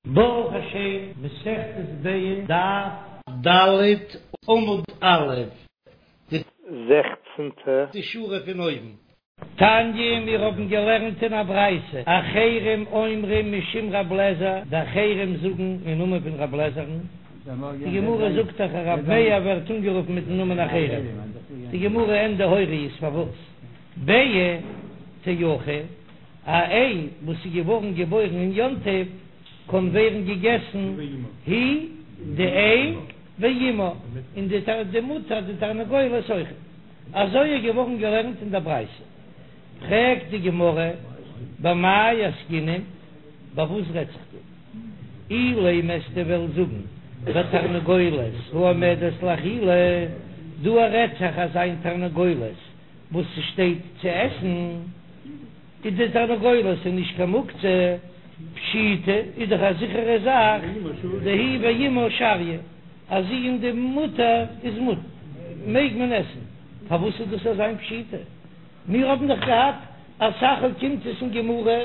ברוך השם, מסכת ביצה, דף ד' עמוד א', די זעכצנטע שורה פון אויבן. תניא, מיר האבן געלערנט אין א ברייתא, אחרים אומרים משום רב לעזער, די אחרים זאגן אין נאמען פון רב לעזער'ן, די גמרא זאגט דאך אז רב מאיר ווערט אנגערופן מיטן נאמען אחרים, די גמרא ענדע הוריות פארוואס ביעא תאכל. א איי וואס איז געווארן געבוירן אין יום טוב קען ווערן געגעסן היא די איי ואמה און די די מוטער די תרנגולת אויך. אזוי איז געווארן געלערנט אין דער ברייתא. פרעגט די גמרא במאי עסקינן, ביי וואס רעדט זיך דא? אילימא וועסטו וועלן זאגן בתרנגולת העומדת לאכילה, דא רעדט זיך אזא איין תרנגולת וואס ס'שטייט צו עסן, איז די תרנגולת איז נישט קיין מוקצה, פשיטא איז דאך א זיכערע זאך, דהיא ואמה שריא, אז זי און די מוטער איז מותר, מעג מען עסן, פארוואס איז דאס אזא איין פשיטא? מיר האבן דאך געהאט אסאך אוקימתות אין גמרא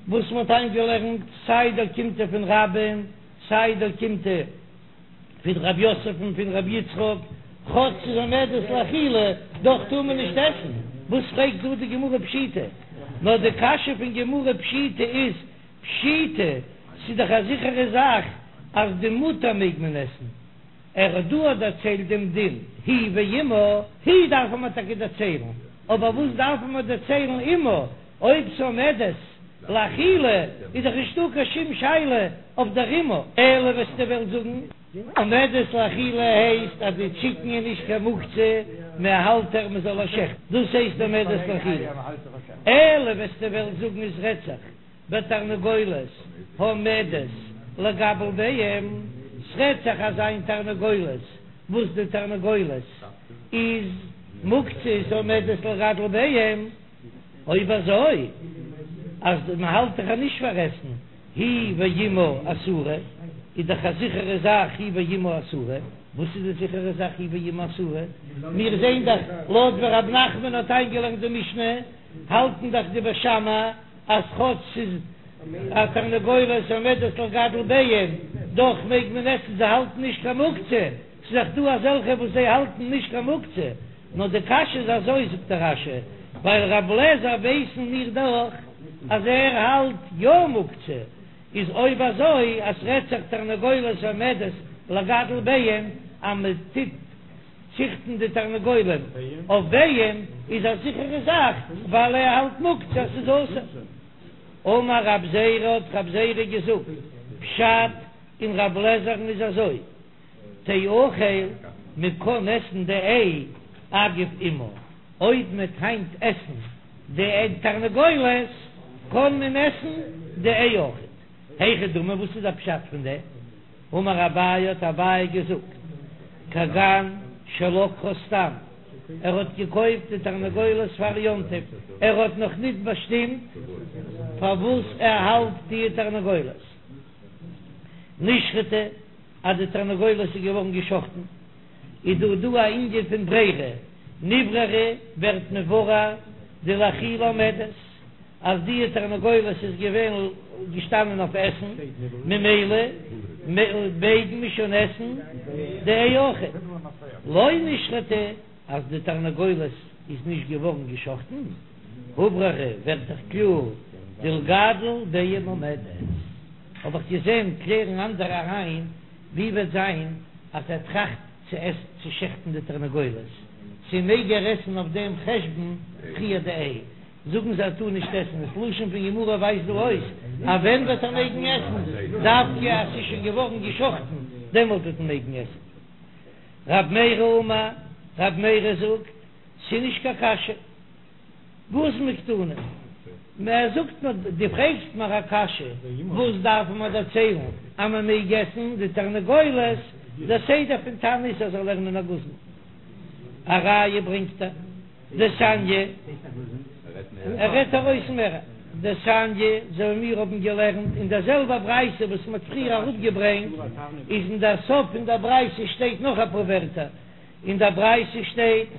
וואס מ'האט איינגעלערנט סיי די אוקימתא פון רבה'ן סיי די אוקימתא פון רב יוסף און פון רב יצחק, כאטש ס'איז עומדת לאכילה, דאך טאר מען נישט עסן, וואס פרעגט דא די גמרא פשיטא? נאר די קשיא פון גמרא פשיטא איז, פשיטא, ס'איז דאך א זיכערע זאך אז די מוטער מעג מען עסן, ער האט דא דערציילט דעם דין היא ואמה, היא דארף מען טאקע דערציילן, אבער וואס דארף מען דערציילן אמה, אויב ס'עומדת לאכילה איז דאך נישטא קיין שום שאלה אויף דער אמה, אלא וועסטו וועלן זאגן עומדת לאכילה הייסט אז די טשיקן איז נישט קיין מוקצה, מען האלט איר מען זאל איר שעכטן, דאס הייסט עומדת לאכילה, אלא וועסטו וועלן זאגן עס רעדט זיך בתרנגולת העומדת לגדל ביצים, ס'רעדט זיך אזא איין תרנגולת וואס די תרנגולת איז מוקצה איז עומדת לגדל ביצים. אויב אזוי אז מען האלט דאך נישט פאר עסן היא ואמה אסורה, איז דאך א זיכערע זאך היא ואמה אסורה, וואס איז די זיכערע זאך היא ואמה אסורה? מיר זעהן דאך לויט ווי רב נחמן האט איינגעלערנט די משנה, האלטן דאך די בית שמאי אז כאטש ס'איז א תרנגולת עומדת לגדל ביצים, דאך מעג מען עסן, זיי האלטן נישט קיין מוקצה, ס'איז דאך דא אזעלכע וואס זיי האלטן נישט קיין מוקצה. נאר די קשיא איז אזוי זאגט דער רש"י, ווייל רב לעזער ווייסן מיר דאך אז ער האלט יא מוקצה, איז אויב אזוי אז ס'רעדט זיך תרנגולת העומדת לגדל ביצים אז מען טוט ציכטן די תרנגולים אויף ביצים איז א זיכערע זאך ווייל ער האלט מוקצה אז ס'איז אסור. אמר רב זירא האט רב זירא געזאגט פשט אין רב לעזער'ן איז אזוי. תאכל, מען קען עסן די איי אגב אמה, אויב מען וועט היינט עסן די תרנגולת קען מען עסן די איי אויכעט. היכי דמי וואס איז די פשט פון דעם? אמר אביי האט אביי געזאגט, כגון שלקחה סתם, ער האט געקויפט די תרנגולת פאר יום טוב, ער האט נאך ניט באשטימט פארוואס ער האלט די תרנגולת, נשחטה. אז די תרנגולת איז געווארן געשחטן, איז דא דא א ענין פון ברירה, נבררה ווערט מבורר דלאכילה עומדת, אז די תרנגולת איז געווען געשטאנען אויף עסן, ממילא מעג מען שוין עסן די איי אויכעט, לא נשחטה, אז די תרנגולת איז נישט געווארן געשחטן, הובררה ווערט דאך קלאר דלגדל ביצים עומדת. האב איך געזען קלערן אנדערע אריין, ווי וועט זיין אז ער טראכט צו עסן צו שעכטן די תרנגולת, צו מעג ער עסן אויף דעם חשבון פריער די איי? זאגן זיי ער טאר נישט עסן, דאס לשון פון גמרא ווייזט דא אויס אז ווען וועט ער מעגן עסן, דווקא אז ס'איז שוין געווארן געשחטן דעמאלט וועט מען מעגן עסן. רב מרי אמר, רב מרי זאגט, ס'איז נישט קיין קשיא. גוזמא קתני, מען זאגט נאר, דו פרעגסט מיר א קשיא, וואס דארף מען דערציילן אז מען מעג עסן די תרנגולת, דער סדר פון תנא איז אז זאל לערנען א גוזמא, א ראיה ברענגט ער, דתניא, ער רעדט ארויס מער, דתניא, אזוי ווי מיר האבן געלערנט אין דער זעלבער ברייתא וואס מען האט פריער אראפגעברענגט, איז אין דער סוף פון דער ברייתא שטייט נאך אפאר ווערטער, אין דער ברייתא שטייט,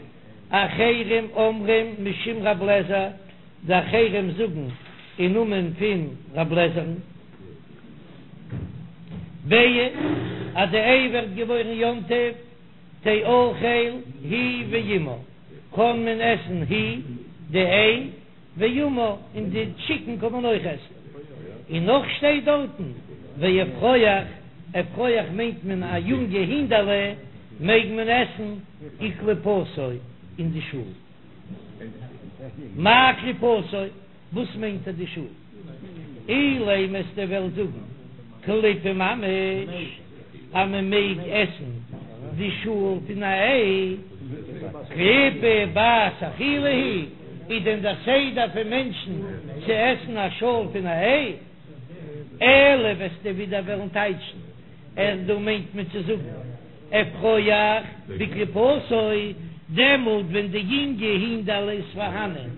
אחרים אומרים משום רב לעזער, די אחרים זאגן אין נאמען פון רב לעזער'ן. ביעא, אז די איי ווערט געבוירן יום טוב, תאכל היא ואמה, קען מען עסן היא, די איי, ואמה, און די טשיקן קען מען אויך עסן. און נאך שטייט דארטן, ואפרוח, אפרוח מיינט מען א יונגע הינדעלע, מעג מען עסן וקליפתו און די שאל. מאי קליפתו? וואס מיינט ער די שאל? אילימא וועסטו וועלן זאגן קליפה ממש אז מען מעג עסן די שאל פון א איי, קליפה בת אכילה היא, איז דען דער סדר פון מענטשן צו עסן א שאל פון א איי? אלא וועסטו ווידער וועלן טייטשן אז דא מיינט מען צו זאגן אפרוח בקליפתו, דעמאלט ווען די יונגע הינדעלע איז פארהאנען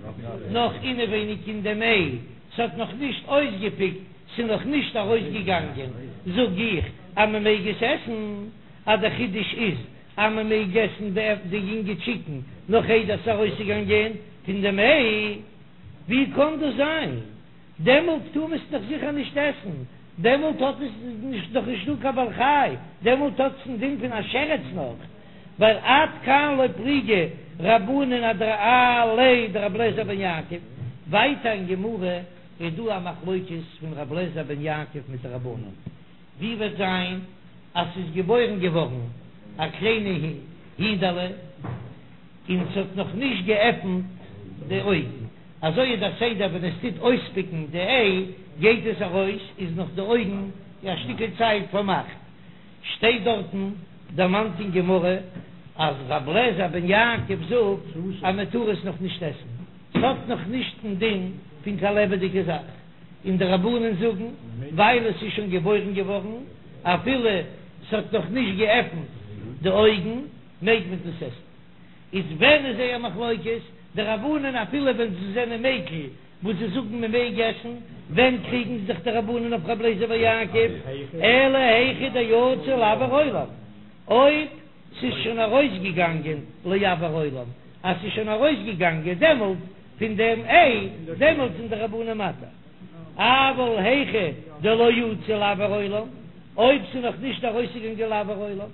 נאך אינעווייניג אין דעם איי, ס'האט נאך נישט אויסגעפיקט, ס'איז נאך נישט ארויסגעגאנגען, זאג איך אז מ'מעג עס עסן, אז דער חידוש איז אז מ'מעג עסן די יונגע טשיקן נאך איידער ס'איז ארויסגעגאנגען פון דעם איי, ווי קען דאס זיין? דעמאלט טאר מען עס דאך זיכער נישט עסן, דעמאלט האט עס נישט דאך נישט דא קיין בעל חי, דעמאלט האט עס דעם דין פון א שרץ נאך, ווייל עד כאן לא פליגי רבנן עליה דרבי אליעזר בן יעקב, ווייטער אין גמרא איז דא א מחלוקת פון רבי אליעזר בן יעקב מיט די רבנן, ווי וועט זיין אז ס'איז געבוירן געווארן א קליינע הינדעלע און ס'האט נאך נישט געעפנט די אויגן, אזוי איז דער סדר ווען עס טוט אויספיקן די איי גייט עס ארויס איז נאך די אויגן א שטיקל צייט פארמאכט, שטייט דארטן דערמאנט אין גמרא אז ר' אליעזר בן יעקב זאגט אז מען טאר עס נאך נישט עסן, ס'האט נאך נישט דעם דין פון קיין לעבעדיגע זאך, און די רבנן זאגן ווייל עס איז שוין געבוירן געווארן אפילו ס'האט נאך נישט געעפנט די אויגן מעג מען דאס עסן. איז ווען איז זייער מחלוקת? די רבנן אפילו ווען זיי זענען מיקל וואס זיי זאגן מען מעג עסן, ווען קריגן זיך די רבנן אויף רבי אליעזר בן יעקב? אלא היכא דיצא לאויר עולם, אויב ס'איז שוין ארויסגעגאנגען לאויר עולם, אז ס'איז שוין ארויסגעגאנגען דעמאלט פון דעם איי, דעמאלט זענען די רבנן מתיר. אבל היכא דלא יצא לאויר עולם, אויב ס'איז נאך נישט ארויסגעגאנגען לאויר עולם.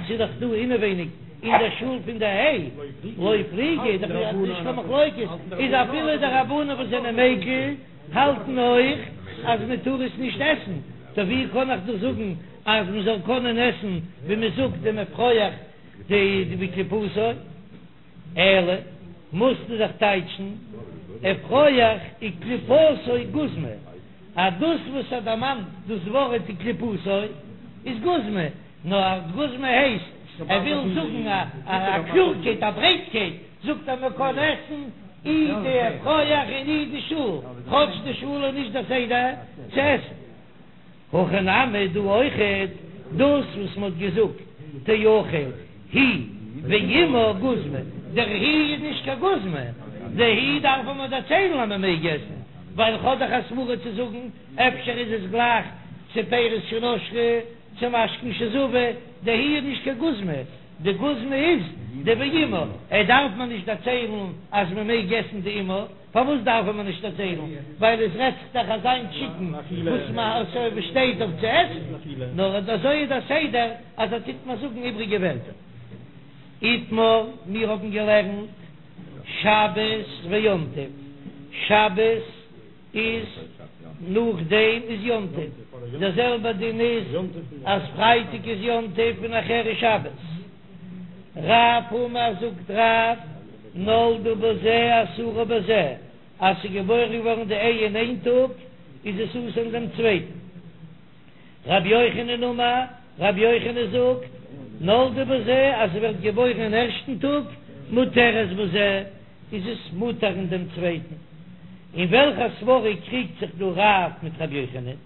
ס'איז דאך דא אינעווייניג אין דער שאל פון די איי, לא פליגי, איז דאך נישט קיין מחלוקת, איז אפילו די רבנן וואס זענען מיקל האלטן אויך אז מען טאר עס נישט עסן, טא ווי קען איך דא זאגן אז מען זאל קענען עסן ווי מען זאגט דעם אפרוח די בקליפתו? אלא מוזטו דאך טייטשן אפרוח וקליפתו גוזמא, אז דאס וואס ער דערמאנט דאס ווארט וקליפתו איז גוזמא, נאר גוזמא הייסט ער וויל זאגן א קלארקייט א ברייטקייט, זאגט ער מען קען עסן אי די אפרוח און אי די שאל, כאטש די שאל איז נישט דער סדר צו עסן. הכא נמי דא אויכעט דאס וואס מ'האט געזאגט תאכל היא ואמה גוזמא, דער היא איז נישט קיין גוזמא, די היא דארף מען דערציילן אז מ'מעג עסן, ווייל כ'האב דאך א סברא צו זאגן אפשר איז עס גלייך צו פירות שנשרו צו משקין שזבו, די היא איז נישט קיין גוזמא, די גוזמא איז די ואמה, ער דארף מען נישט דערציילן אז מ'מעג עסן די אמה. פארוואס דארף מען נישט דערציילן? ווייל עס רעדט זיך דאך אזא טשיקן וואס מען שטייט אויף צו עסן, נאר אזוי איז דער סדר אז ער טוט מיר זאגן איבריגע ווערטער. איתמר, מיר האבן געלערנט שבת ויום טוב, שבת איז נאכדעם איז יום טוב, דער זעלבער דין איז אז פרייטאג איז יום טוב און נאכהער איז שבת. רב אמר זאגט רב, נולדה בזה אסורה בזה, אז ס'איז געבוירן געווארן די איי אין איין טאג, איז עס אסור אין דעם צווייטן. רבי יוחנן אמר, רבי יוחנן זאגט, נולדה בזה, אז ס'ווערט געבוירן אין ערשטן טאג, מותרת בזה, איז עס מותר אין דעם צווייטן. אין וועלכע סברא קריגט זיך דא רב מיט רבי יוחנן?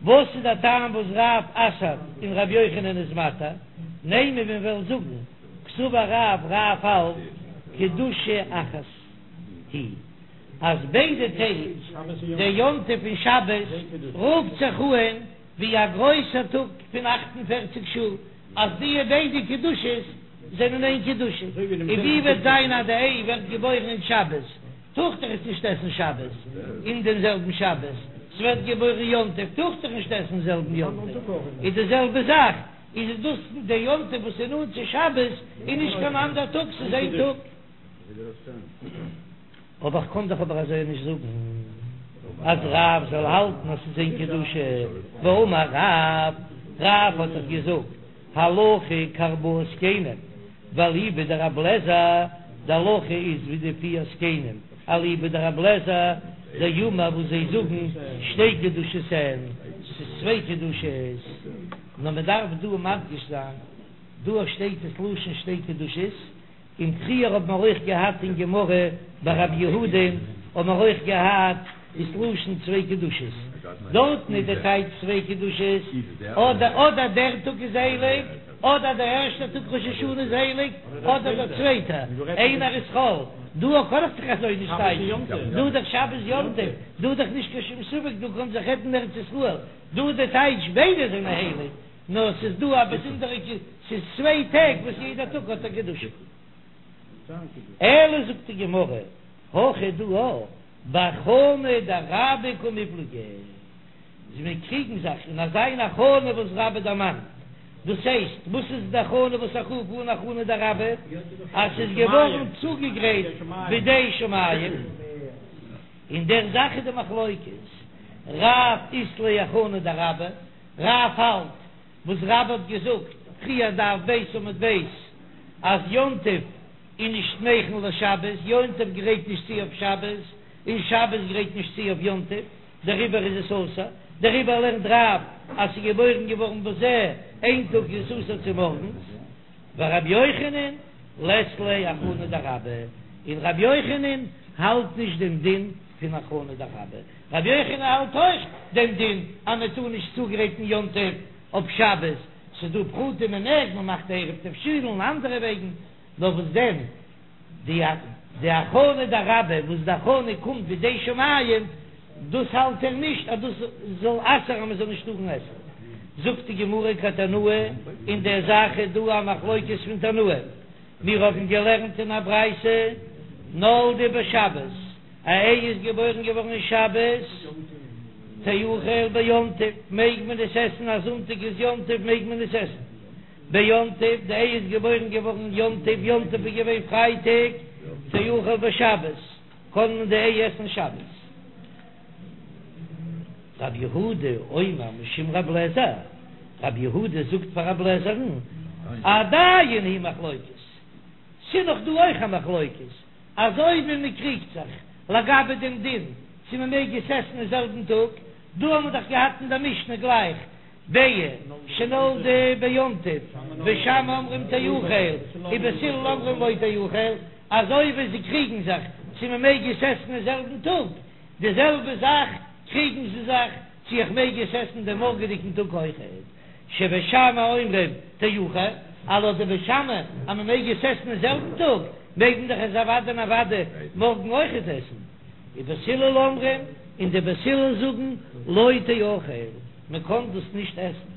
וואס איז דער טעם וואס רב אסר'ט און רבי יוחנן איז מתיר? נימא מיר וועלן זאגן קסבר רב רב האלט קדושה אחת היא אז ביידע טעג דער יום טוב און שבת רופט זיך אהן ווי א גרויסער טאג פון 48 שעה אז די ביידע קדושות זענען איין קדושה און ווי וועט זיין אז די איי ווערט געבוירן אין שבת טאר איך דאך עס נישט עסן שבת אין דעם זעלבן שבת. ס'ווערט געבוירן יום טוב, טאר איך דאך נישט עסן זעלבן יום טוב, איז די זעלבע זאך, איז דאס די יום טוב וואס איז נאנט צו שבת איז נישט קיין אנדער טאג, ס'איז איין טאג. אבער איך קען דאך אבער אזוי נישט זאגן אז רב זאל האלטן אז ס'איז איין קדושה, והאמר רב, רב האט דאך געזאגט הלכה כארבעה זקנים, ואליבא דרבי אליעזר, די הלכה איז ווי די פיר זקנים, אליבא דרבי אליעזר, דאמר וואס זיי זאגן שתי קדושות הן, ס'איז צוויי קדושות, נאר מ'דארף דא מדגיש זיין, דא שטייט עס לשון שתי קדושות, און פריער האט מען אויך געהאט אין גמרא ביי רב יהודה האט מען אויך געהאט דאס לשון צוויי קדושות, דארטן איז די טייטש צוויי קדושות, אדער אדער דער טאג איז הייליג, אדער דער ערשטער טאג ראש השנה איז הייליג, אדער דער צווייטער, איינער איז חול, דא קען איך זיך אזוי נישט טייטשן, דא איז דאך שבת יום טוב, דא איז דאך נישט קיין שום ספק, דא קען זיך רעדן ארץ ישראל, דא איז די טייטש ביידע זענען הייליג. נאר ס'איז דא א באזונדערע ק, ס'איז צוויי טעג וואס יעדע טאג האט א קדושה. אלא זאגט די גמרא, הכא דא בהכנה דרבה קמיפלגי, זיי קריגן זיך אין אזא איין הכנה וואס רבה דערמאנט, דאס הייסט, וואס איז די הכנה וואס איך רוף אן הכנה דרבה, אז ס'איז געווארן צוגעגרייט בידי שמים, אין דער זאך איז די מחלוקת, רב אית ליה הכנה דרבה, רב האלט וואס רבה האט געזאגט פריער דף ב' עמוד ב' אז יום טוב איז נישט מכין לשבת, יום טוב גרייט נישט צו אויף שבת, און שבת גרייט נישט צו אויף יום טוב, דעריבער איז עס אסור, דעריבער לערנט רב אז ס'איז געבוירן געווארן בזה איין טאג איז עס אסור צומארגנס, ורבי יוחנן לית ליה הכנה דרבה, און רבי יוחנן האלט נישט דעם דין פון הכנה דרבה. רבי יוחנן האלט אויך דעם דין אז מען טאר נישט צוגרייטן יום טוב אויף שבת, ס'איז דא פרטים מען מעג, מען מאכט עירוב תבשילין און אנדערע וועגן, נאר וואס דען די די הכנה דרבה וואס די הכנה קומט בידי שמים, דאס האלט ער נישט אז דאס זאל אסר'ן אז מען זאל נישט טארן עסן. זאגט די גמרא כתנאי, אין דער זאך איז דא א מחלוקת פון תנאים, מיר האבן געלערנט אין א ברייתא נולדה בשבת, א איי איז געבוירן געווארן אין שבת, תאכל ביום טוב, מעג מען עס עסן, אז זונטאג איז יום טוב מעג מען עס עסן ביום טוב, די איי איז געבוירן געווארן יום טוב, יום טוב איז געווען פרייטאג, תאכל בשבת, קען מען די איי עסן שבת. רב יהודה אומר משום רב לעזער, רב יהודה זאגט פאר רב לעזער'ן, עדיין היא מחלוקת, ס'איז נאך דא אויך א מחלוקת, אזוי ווי מען קריגט זיך לגבי דעם דין צו מען מעג עס עסן אין זעלבן טאג, דא האבן מיר דאך געהאט אין דער משנה גלייך ביעה שנולדה ביום טוב, בית שמאי אומרים תאכל ובית הלל אומרים לא תאכל, אזוי ווי זיי קריגן זיך צו מען מעג עס עסן אין זעלבן טאג, די זעלבע זאך קריגן זיי זיך צו איך מעג עס עסן דעם מארגעדיגן טאג אויכעט. שבית שמאי אומרים תאכל, אז לויט די בית שמאי אז מען מעג עס עסן אין זעלבן טאג, מעג מען דאך עס אוודאי און אוודאי מארגן אויכעט עסן. ובית הלל אומרים, און די בית הלל זאגן לא תאכל, מען קען דאס נישט עסן.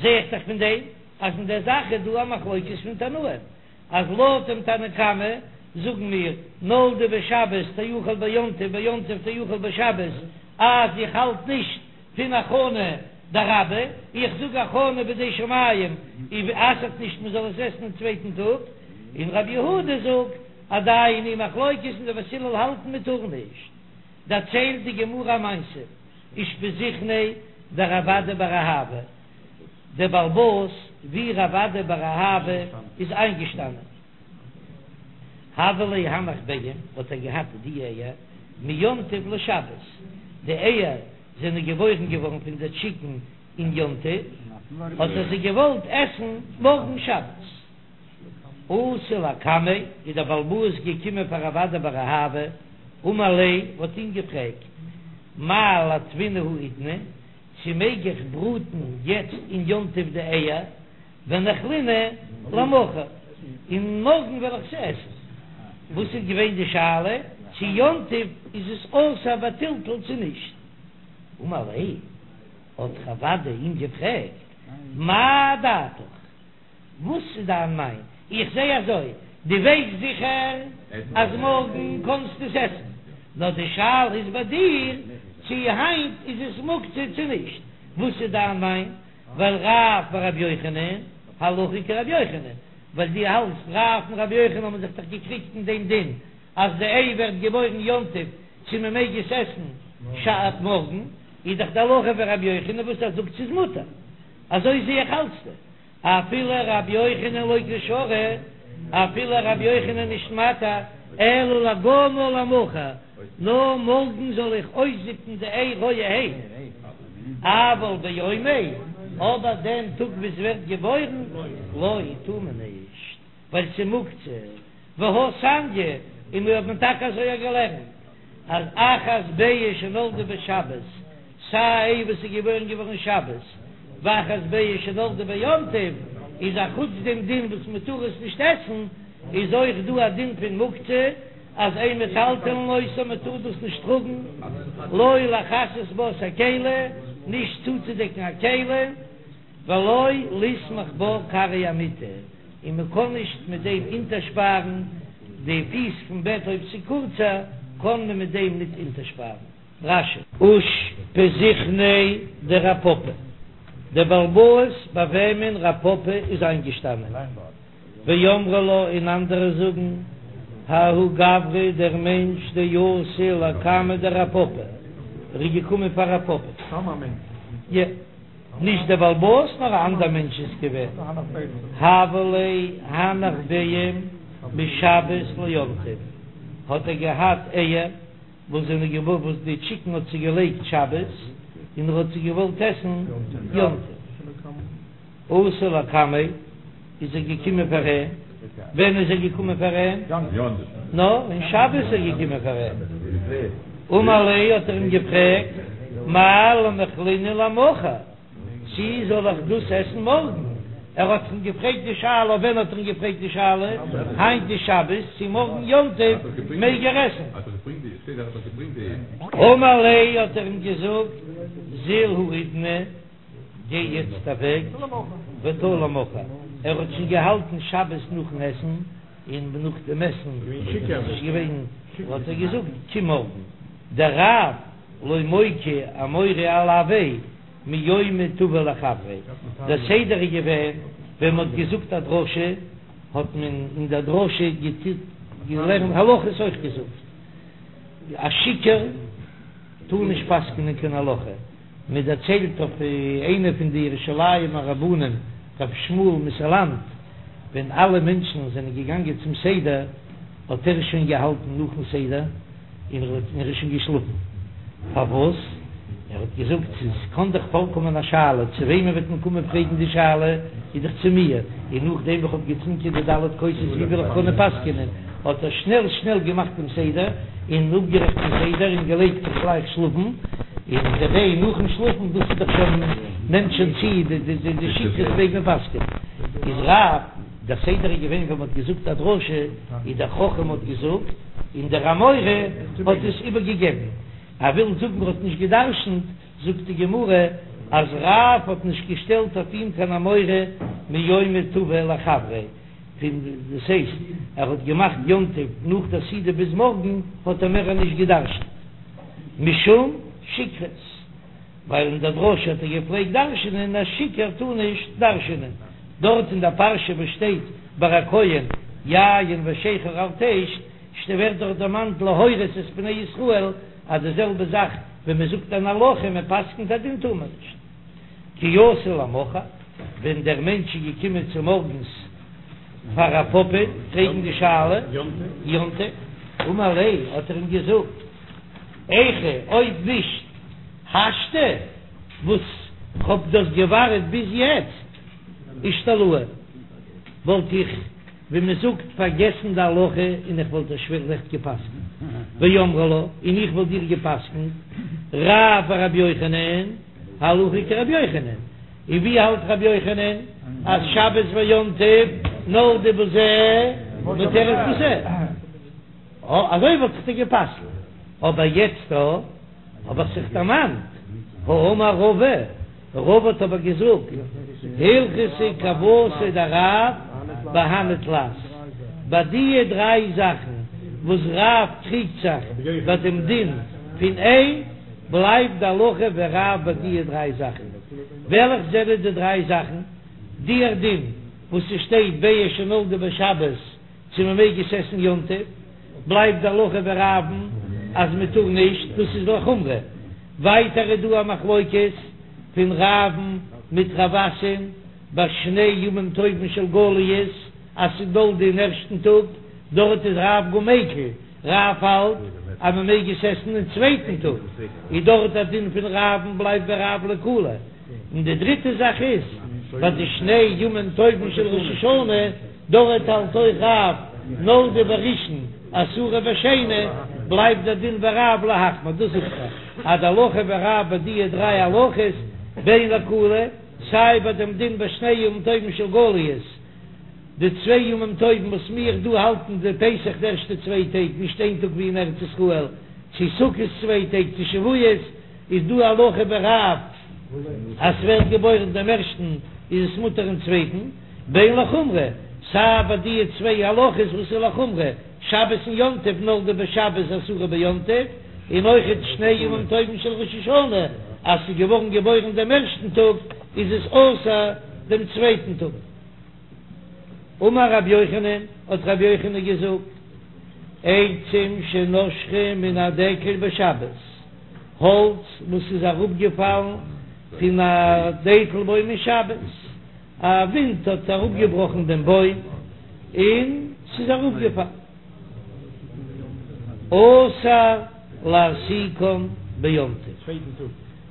זע איך דאך פון דעם אז אין דער זאך איז דא א מחלוקת פון תנאים, אז לויט דעם תנא קמא זאגן מיר נולדה בשבת תאכל ביום טוב ביום טוב תאכל בשבת, אז איך האלט נישט פון הכנה דרבה, איך זאג הכנה בידי שמים אסר'ט נישט מען זאל עס עסן אין צווייטן טאג, און רבי יהודה זאגט עדיין היא מחלוקת און די בית הלל האלטן מען טאר נישט. דערציילט די גמרא א מעשה, אושפיזכניה דרב אדא בר אהבה, דער בעל הבית ווי רב אדא בר אהבה איז איינגעשטאנען, הוה ליה הנך ביעין, האט ער געהאט די אייער מיום טוב לשבת, די אייער זענען געבוירן געווארן פון די טשיקן אין יום טוב, האט ער זיי געוואלט עסן מארגן שבת. אתא לקמיה, איז דער בעל הבית געקומען פאר רב אדא בר אהבה, אמר ליה, האט אים געפרעגט, מהו לאטבינהו האידנא, צו מעג איך בראטן יעצט אין יום טוב די אייער, וניכלינהו למחר, און מארגן וועל איך זיי עסן. וואס איז געווען די שאלה, צו יום טוב איז עס אסור בטלטול צו נישט? אמר ליה, האט רב אדא אים געפרעגט, מאי דעתיך, וואס איז דיין מיין? איך זע אזוי, דו ווייסט זיכער אז מארגן קענסטו עס עסן, נאר די שאלה איז ביי דיר. צי היינט איז עס מוקצה צו נישט, וואס איז דיין מיין? ווייל רב ורבי יוחנן, הלכה כרבי יוחנן, ווייל דו האלטסט רב און רבי יוחנן האבן זיך דאך געקריגט אין דעם דין אז די איי ווערט געבוירן יום טוב צו מען מעג עס עסן שבת מארגן, איז דאך די הלכה ווי רבי יוחנן וואס ער זאגט ס'איז מותר, אזוי זע איך האלטסטו אפילו רבי יוחנן לא קא שרי, אפילו רבי יוחנן נישט מתיר, אלא לגומעה למחר, נאר מארגן זאל איך אויסזיפן די איי רויערהייט, אבל ביומיה, אבער דעם טאג וואס ווערט געבוירן, לא, טאר מען נישט, ווייל ס'מוקצה, והא תניא, און מיר האבן טאקע אזוי געלערנט. אז אחת ביצה שנולדה בשבת, סיי א איי וואס איז געבוירן געווארן שבת, ואחת ביצה שנולדה ביום טוב, איז א חוץ דעם דין וואס מען טאר עס נישט עסן, איז אויך דא א דין פון מוקצה, אז אין מטלטלין אותה מען טאר דאס נישט טראגן, לא לכסות בה את הכלי, נישט צוצודעקן א כלי. ולא לסמוך בה כרעי המיטה, און מען קען נישט מיט דעם אונטערשפארן די פיס פון בעט אויב ס'איז קורצער קען מען מיט דעם ניט אונטערשפארן. רש"י. אושפזיכניה דרב פפא, דער בעל הבית ביי וועמען רב פפא איז איינגעשטאנען, ואמרי לה און אנדערע זאגן, ההוא גברא דער מענטש דאתא לקמיה דרב פפא, ער איז געקומען פאר רב פפא. נישט דער בעל הבית נאר א אנדער מענטש איז געווען, הוה ליה הנך ביעים משבת ליום טוב, האט ער געהאט אייער וואס זענען געווארן וואס די טשיקן האט זיי געלייגט שבת און ער האט זיי געוואלט עסן יום טוב, אתא לקמיה איז ער געקומען פאר אים, ווען איז ער געקומען פאר אים? נאר אין שבת איז ער געקומען פאר אים, אמר ליה האט ער אים געפרעגט, מהו למיכלינהו למחר, צי זאל איך דאס עסן מארגן? ער האט אים געפרעגט די שאלה, ווען האט ער אים געפרעגט די שאלה? היינט איז שבת, צי מארגן יום טוב מעג ער עסן? אמר ליה האט ער אים געזאגט, זיל האידנא. גיי יעצט אוועק, ותא למחר, ער האט שוין געהאלטן שבת נאכן עסן, און נאך דעם עסן איז ער נישט געווען, האט ער געזאגט קום מארגן, דרב לא מוקי אמורא עילויה מיומא טבא לחבריה, דער סדר איז געווען ווען מען האט געזאגט א דרשה האט מען אין דער דרשה געלערנט הלכות אויך געזאגט, א שיכור טאר נישט פסק'נען קיין הלכה. מען דערציילט אויף איינע פון די ירושלימ'ער רבנים ר' שמואל מסאלאנט, ווען אלע מענטשן זענען געגאנגען צום סדר האט ער שוין געהאלטן נאכן סדר און ער איז שוין געשלאפן, פארוואס? ער האט געזאגט ס'קען דאך פארקומען א שאלה, צו וועמען וועט מען קומען פרעגן די שאלה, איז דאך צו מיר, און נאכדעם וואס כ'האב געטרינקען די ד' כוסות ווי וועל איך קענען פסק'ענען? האט ער שנעל שנעל געמאכט דעם סדר און אפגערעכט דעם סדר און געלייגט זיך גלייך שלאפן, און כדי נאכן שלאפן, דאס איז דאך שוין נעמט שוין צו די די שכרות מעג מען פסק'ענען. איז רב, דער סדר איז געווען ווען מען האט געזאגט א דרשה, איז דער חכם האט געזאגט און דער אמורא האט עס איבערגעגעבן, ער וויל זאגן ער האט נישט גע'דרש'נט, זאגט די גמרא אז רב האט נישט געשטעלט אויף אים קיין אמורא מיומא טבא לחבריה. פון דאס הייסט ער האט געמאכט יום טוב נאך דער סעודה ביז מארגן האט ער מער נישט געדרשנט משום שכרות ווייל אין דער דרשה האט ער געפלעגט דרשנען א שיכור טאר נישט דרשנען דארט אין דער פרשה וואס שטייט ביי א כהן יין ושכר אל תשת ווערט דארט דערמאנט להורות את בני ישראל אז די זעלבע זאך ווען מען זאגט אן הלכה מען פסקנט א דין טאר מען נישט. כי אתא למחר, ווען דער מענטש איז געקומען צו מארגנס פאר רב פפא פרעגן די שאלה, יום טוב, אמר ליה, האט ער אים געזאגט, היכי אויב נישט השתא וואס כ'האב דאס געווארט ביז יעצט, אישתלאי, וואלט איך ווי מען זאגט פארגעסן די הלכה און איך וואלט דיר שלעכט געפסקנט, ואמרי לה, און איך וואלט דיר געפסקנט, רב ורבי יוחנן, הלכה כרבי יוחנן, און ווי האלט רבי יוחנן אז שבת ויום טוב נולדה בזה מותרת בזה? אה, אזוי וואלט איך דיר געפסקנט, אבער יעצט דא האב איך זיך דערמאנט, האמר רבא, רבא האט אבער געזאגט, הלכתא כוותיה דרב בהני תלת, ביי דיע דריי זאכן וואס רב קריגט זיך ביי דעם דין פון איי. בלייבט די הלכה ווי רב ביי דיע דריי זאכן. וועלכע זענען די דריי זאכן? דיער דין וואס ס'שטייט ביצה שנולדה בשבת צו מ'מעג עס עסן יום טוב, בלייבט די הלכה ווי רב'ן אז מ'טאר נישט, דאס איז לחומרא. ווייטער איז דא א מחלוקת פון רב'ן מיט רב אסי'ן ביי שני ימים טובים של גליות אז ס'איז נולדה אין ערשטן טאג, דארט איז רב גאר מיקל, רב האלט אז מען מעג עס עסן אין צווייטן טאג, איז דארט א דין פון רב'ן בלייבט ווי רב לקולא, און די דריטע זאך איז ביי די שני ימים טובים של ראש השנה, דארט האלט אויך רב נולדה בראשון אסורה בשני, בלייבט דער דין ווי רב להחמיר, דאס זאגט ער אז די הלכה ווי רב ביי דיע דריי הלכות בין לקולא, סיי ביי דעם דין ביי שני ימים טובים של גליות, די צוויי ימים טובים וואס מיר דא האלטן די פסח די ערשטע צוויי טעג נישט איין טאג ווי אין ארץ ישראל, צו סוכות צוויי טעג צו שבועות, איז דא הלכה ווי רב אז ס'ווערט געבוירן דעם ערשטן איז עס מותר אין צווייטן, בין לחומרא, סיי ביי דיע צוויי הלכות וואס איז לחומרא, שבת און יום טוב נולדה בשבת אסורה ביום טוב, און אויכעט שני ימים טובים של ראש השנה אז ס'איז געווארן געבוירן דעם ערשטן טאג איז עס אסור דעם צווייטן טאג. אמר רבי יוחנן, האט רבי יוחנן געזאגט, עצים שנשרו מן הדקל בשבת, האלץ וואס איז אראפגעפאלן פון א דקל בוים אין שבת, א ווינט האט אראפגעבראכן דעם בוים און ס'איז אראפגעפאלן, אסור להסיקן ביום טוב.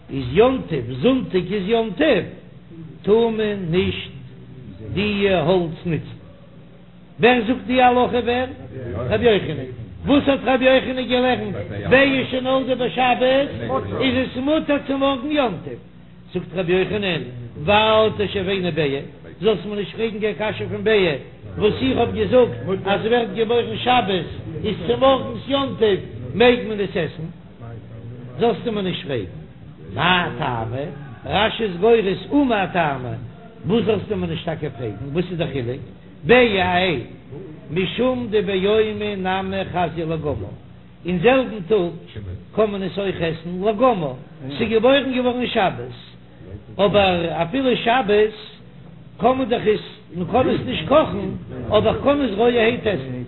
איז יום טוב, זונטאג איז יום טוב, טאר מען נישט דיע האלץ נוצן. ווער זאגט די הלכה ווער? רבי יוחנן. וואס האט רבי יוחנן געלערנט? ביצה שנולדה בשבת איז עס מותר צו מארגן יום טוב. זאגט רבי יוחנן, ואל תשיבני ביעא, זאלסט מיר נישט פרעגן קיין קשיא פון ביעא, וואס איך האב געזאגט אז ס'ווערט געבוירן שבת איז צומארגנס יום טוב מעג מען עס עסן. זאלסטו מיר נישט פרעגן מאי טעמא, רש"י איז גורס ומאי טעמא, וואס זאלסטו מיר נישט טאקע פרעגן, וואס איז דער חילוק, ביעא א איי, משום דביומא נמי חזיא לגמר, אין זעלבן טאג קען מען עס אויך עסן לגמר, ס'איז געבוירן געווארן שבת, אבער אפילו שבת קען מען דאך עס, מען קען עס נישט קאכן, אבער כ'קען עס רויערהייט עסן,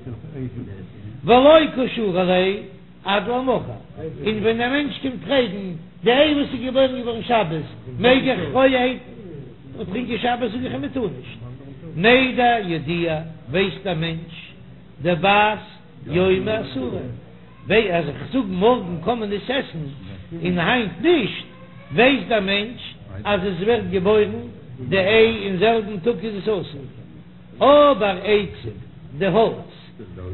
ולא קא שרי ליה. עד למחר, און ווען א מענטש קומט פרעגן די איי וואס איז געבוירן געווארן שבת, מעג איך רויערהייט טרינקען שבת, זאג איך אים מען טאר נישט. מידע ידיע, ווייסט א מענטש דבת יומא אסורה, וויי אז איך זאג מארגן קען מען עס עסן און היינט נישט, ווייסט דער מענטש אז עס ווערט געבוירן די איי אין זעלבן טאג איז עס אסור. אבער עצים, די האלץ.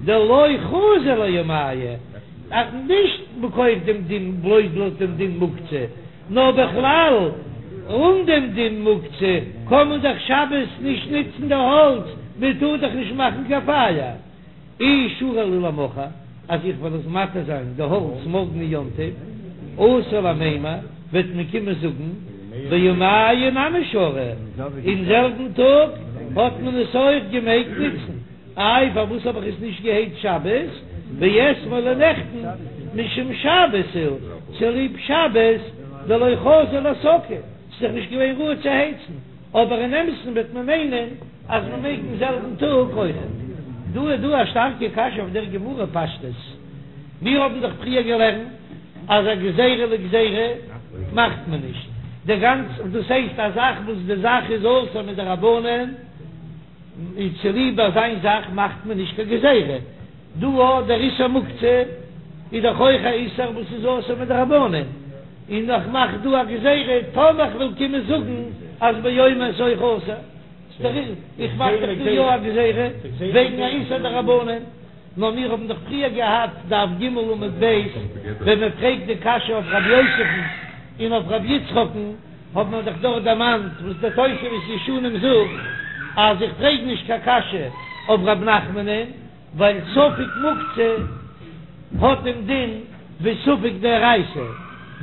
דלא חזי ליומייהו, אז נישט מכח דעם דין בלויז לויט דעם דין מוקצה, נאר בכלל אן דעם דין מוקצה קען מען דאך שבת נישט נוצן די האלץ, מען טאר דאך נישט מאכן קיין פייער. אי שרי להו למחר, אז איך וועל עס מתיר זיין די האלץ מארגן אין יום טוב, אתי למימר, וועט מען קומען זאגן ביומייהו נמי שרי, אין זעלבן טאג האט מען עס אויך געמעגט נוצן. איי פארוואס האב איך עס נישט געהייצט שבת? ואתמול און נעכטן משום שבת הוא, צוליב שבת דלא חזי להסקה, ס'איז דאך נישט געווען ראוי צו הייצן, אבער אין אמת'ן וועט מען מיינען אז מען מעג אין זעלבן טאג אויכעט. דא איז דא א שטארקע קשיא אויף דער גמרא פשטות, מיר האבן דאך פריער געלערנט אז א גזירה לגזירה מאכט מען נישט, די גאנצע דאס הייסט א זאך וואס די זאך איז אסור מדרבנן, און צוליב אזיין זאך מאכט מען נישט קיין גזירה, דא אויך דער איסור מוקצה איז דאך אויך א איסור וואס איז אסור מדרבנן, און איך מאך דא א גזירה טאמער איך וועל קומען זאגן אז ביומא איז אויך אסור, איך מאך דאך דא יא א גזירה וועגן א איסור דרבנן, נאר מיר האבן דאך פריער געהאט דף ג עמוד ב' ווען מען פרעגט די קשיא אויף רבי יוסף'ן און אויף רבי יצחק'ן, האט מען דאך דארט דערמאנט וואס דער תוספות ישנים זאגט אז איך פרעג נישט קיין קשיא אויף ר' נחמנ'ן ווייל ספק מוקצה האט דעם דין ווי ספק דאורייתא,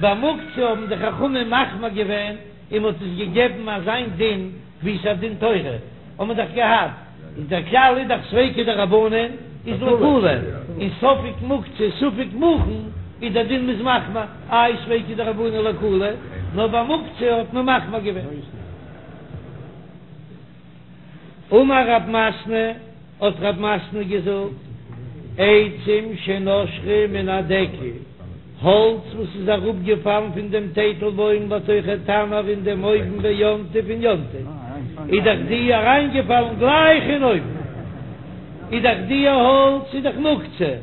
ביי מוקצה האבן די חכמים מחמיר געווען און מ'האט עס געגעבן אזיין דין ווי ס'איז א דין תורה האט מען דאך געהאט, איז דער כלל איז דאך ספיקא דרבנן איז לקולא, און ספק מוקצה ספק מוכן. איז דער דין מ'איז מחמיר, איי ספיקא דרבנן לקולא, נאר ביי מוקצה האט מען מחמיר געווען. אמר רב מתנה, האט רב מתנה געזאגט, עצים שנשרו מן הדקל, האלץ וואס איז אראפגעפאלן פון דעם טייטלבוים לתוך התנור אין דעם אויוון ביום טוב אין יום טוב, איז דאך די אריינגעפאלן גלייך אין אויוון, איז דאך די האלץ איז דאך מוקצה.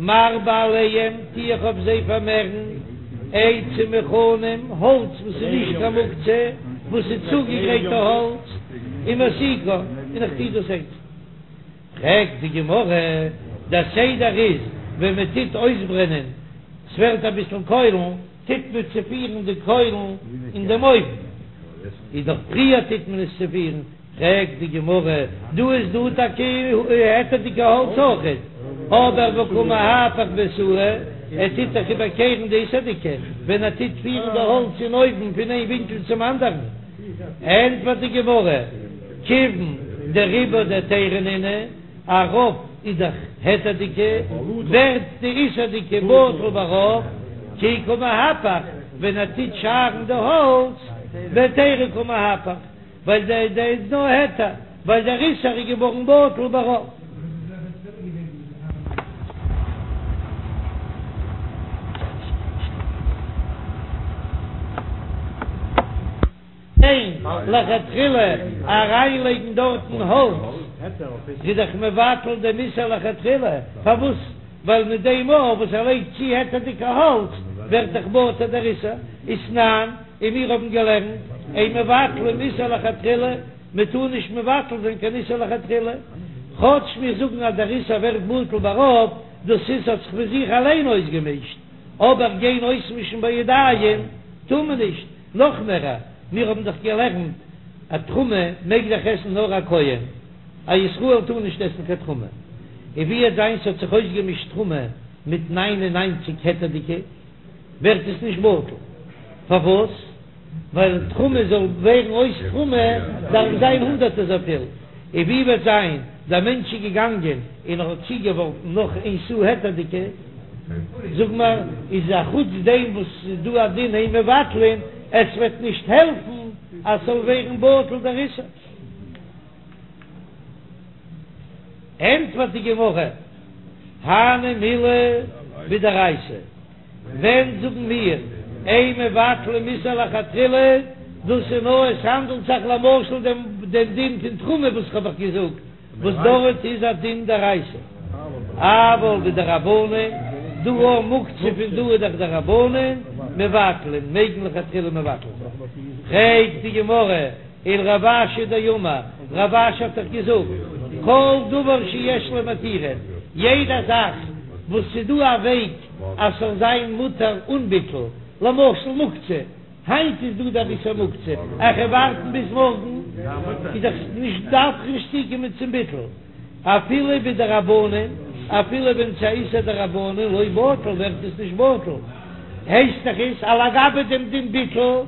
מרבה עליהם, טו איך אויף זיי פארמערן, עצים מוכנים, האלץ וואס איז נישט קיין מוקצה, וואס איז צוגעגרייטע האלץ, ומסיקן, און איך טו דאס הייצן. פרעגט די גמרא, דער סדר איז, ווען מען טוט אויסברענען, ס'ווערט אביסל קוילן, טוט מען צופירן די קוילן אין דעם אויוון, איז דאך פריער טוט מען עס צופירן, פרעגט די גמרא, דא איז דא טאקע היתר'דיגע האלץ אויכעט, אבער והא קא מהפך באיסורא, ער טוט דאך איבערקערן די איסור'דיגע, ווען ער טוט פירן די האלץ אין אויוון פון איין ווינקל צום אנדערן. ענטפערט די גמרא, כיוון דרובא דהיתרא נינהו, א רוב איז דאך היתר'דיגע, ווערט די איסור'דיגע בטל ברוב, כי קא מהפך, ווען ער טוט שארן די האלץ, בהיתרא קא מהפך. ווייל דער דער איז נאר היתר, ווייל דער איסור איז געווארן בטל ברוב. ניין, לכתחילה אריינלייגן דארטן האלץ איז דאך מבטל דעם איסור לכתחילה, פארוואס? ווייל מיט דעם מאל וואס ער לייגט צו היתר'דיגע האלץ ווערט דאך בטל דער איסור, ותנן. און מיר האבן געלערנט, אין מבטלין איסור לכתחילה, מען טאר נישט מבטל זיין קיין איסור לכתחילה, כאטש מיר זאגן אז דער איסור ווערט בטל ברוב, דאס איז האט זיך פון זיך אליין אויסגעמישט, אבער גיין אויסמישן בידיים טאר מען נישט, נאך מער, מיר האבן דאך געלערנט אז תרומה מעג דאך עסן נאר א כהן, א ישראל טאר נישט עסן קיין תרומה, און ווי וועט זיין ס'האט זיך אויסגעמישט תרומה מיט ניין און ניינציג היתר'דיגע. ווערט עס נישט בטל. פארוואס? ווייל תרומה זאל ווערן אויס תרומה דארף זיין הונדערט אזויפיל. און ווי וועט זיין דער מענטש איז געגאנגען און ער האט צוגעווארפן נאך איין סאה היתר'דיגע, זאג מיר, איז א חוץ דעם וואס ס'איז דא א דין אין מבטלין, עס וועט נישט העלפן אז ס'זאל ווערן בטל דער איסור. ענטפערט די גמרא, הני מילי בדאורייתא, ווען זאגן מיר אין מבטלין איסור לכתחילה, דאס איז נאר עס האנדלט זיך למשל דעם דעם דין פון תרומה וואס כ'האב אייך געזאגט, וואס דארט איז א דין דאורייתא, אבל בדרבנן, דא אויך מוקצה פון דא איז דאך דרבנן, מבטלין, מעג מען לכתחילה מבטל זיין. פרעגט די גמרא, ולרב אשי דאמר, רב אשי האט דאך געזאגט, כל דבר שיש לו מתירין, יעדע זאך וואס ס'איז דא א וועג אז ס'זאל זיין מותר אן ביטול, למשל מוקצה, היינט איז דא דער איסור מוקצה, איך וועל ווארטן ביז מארגן, איז דאך נישט דארף איך נישט צוקומען צום ביטול, אפילו בדרבנן, אפילו ווען ס'איז א איסור דרבנן, לא בטל ווערט עס נישט בטל, הייסט דאך עס אז לגבי דעם דין ביטול.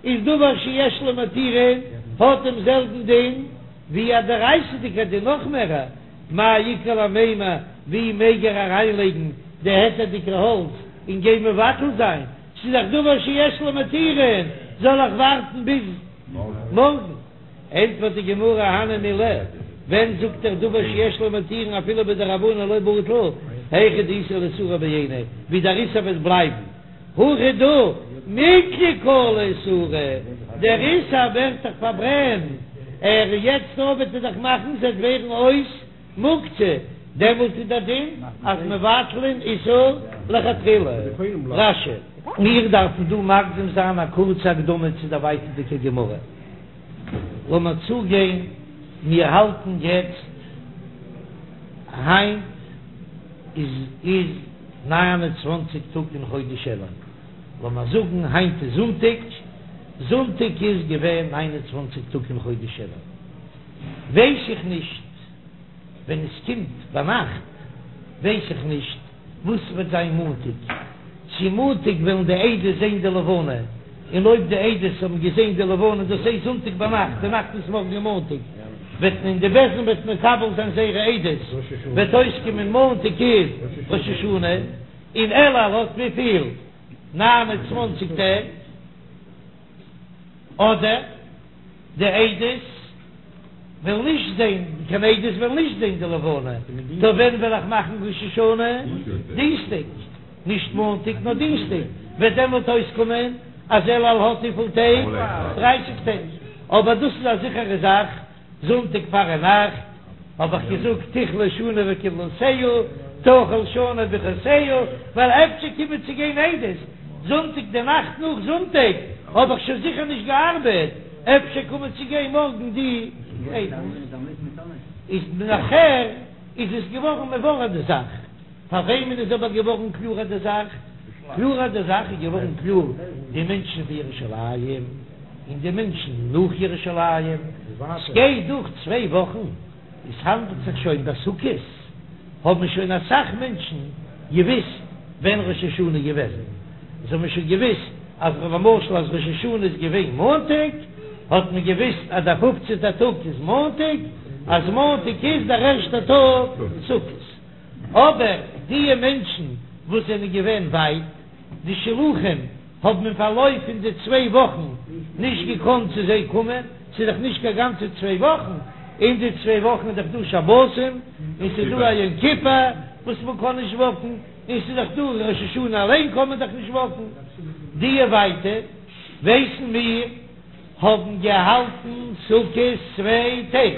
איז דבר שיש לו מתירין האט דעם זעלבן דין ווי א דאורייתא'דיגער דין נאך מער, מאי איכא למימר ווי מעג ער אריינלייגן די היתר'דיגע האלץ און גיין מבטל זיין, ס'איז דאך דבר שיש לו מתירין, זאל איך ווארטן ביז מארגן? ענטפערט די גמרא הני מילי, ווען זאגט ער דבר שיש לו מתירין אפילו בדרבנן לא בטל, היכא דאיתיה לאיסורא בעיניה, ווי דער איסור וועט בלייבן. הכא דא מיקלע קלא איסורא, דער איסור ווערט דאך פארברענט, ער יעצט אויב וועט ער דאך מאכן ס'וועט ווערן אויס מוקצה, דעמאלט איז דער דין אז מבטלין איסור לכתחילה. רש"י. מיר דארפן דא מקדים זיין א קורצע הקדמה צו דער ווייטערדיגער גמרא. לאמיר צוגיין, מיר האלטן יעצט היינט איז איז. 29 טאג אין חודש אלול, לאמיר זאגן היינט איז זונטאג, זונטאג איז געווען 29 טאג אין חודש אלול, ווייס איך נישט ווען עס קומט ביינאכט, ווייס איך נישט וואס וועט זיין מאנטאג, צו מאנטאג וועלן די עדות זען די לבנה, און אויב די עדות האבן געזען די לבנה, דאס הייסט זונטאג ביינאכט, די נאכט איז מארגן מאנטאג, וועט מען די בית דין וועט מקבל זיין זייערע עדות, וועט אויסקומען מאנטאג איז ראש השנה. און אלול האט וויפיל? 29 טעג, אדער די עדות וועלן נישט זען, קיין עדות וועלן נישט זען די לבנה, טא ווען וועל איך מאכן ראש השנה? דינסטאג, נישט מאנטאג נאר דינסטאג, וועט דעמאלט אויסקומען אז אלול האט וויפיל טעג? דרייסיג טעג, אבער דאס איז א זיכערע זאך. זונטאג פארנאכט האב איך געזאגט תכלה שנה וקללותיה, תחל שנה וברכותיה, ווייל אפשר קומען צו גיין עדות זונטאג די נאכט נאך זונטאג האב איך שוין זיכער נישט געארבעט, אפשר קומען צו גיין מארגן די עדות. איז נאכער איז עס געווארן מבורר די זאך. פאר וועמען איז אבער געווארן קלארער די זאך? קלארער די זאך איז געווארן קלאר די מענטשן פון ירושלים און די מענטשן נאך ירושלים, ס'גייט דורך צוויי וואכן, עס האנדלט זיך שוין ביי סוכות, האבן שוין אסאך מענטשן געוויסט ווען ראש השנה איז געוועזן, זיי האבן שוין געוויסט אז למשל אז ראש השנה איז געווען מאנטאג, האט מען געוויסט אז דער פופצנטער טאג איז מאנטאג, אז מאנטאג איז דער ערשטער טאג סוכות. אבער דיע מענטשן וואס זענען געווען ווייט, די שלוחים, האבן אין פארלויף פון די צוויי וואכן נישט געקאנט צו זיי קומען, ס'איז דאך נישט קיין גאנצע צוויי וואכן, אין די צוויי וואכן איז דאך דא שבתים, און ס'איז דא א יום כיפור וואס מען קען נישט וואקן, און ס'איז דאך דא ראש השנה אליין קען מען דאך נישט וואקן, דיע ווייטע ווייסן מיר האבן געהאלטן סוכות צוויי טעג,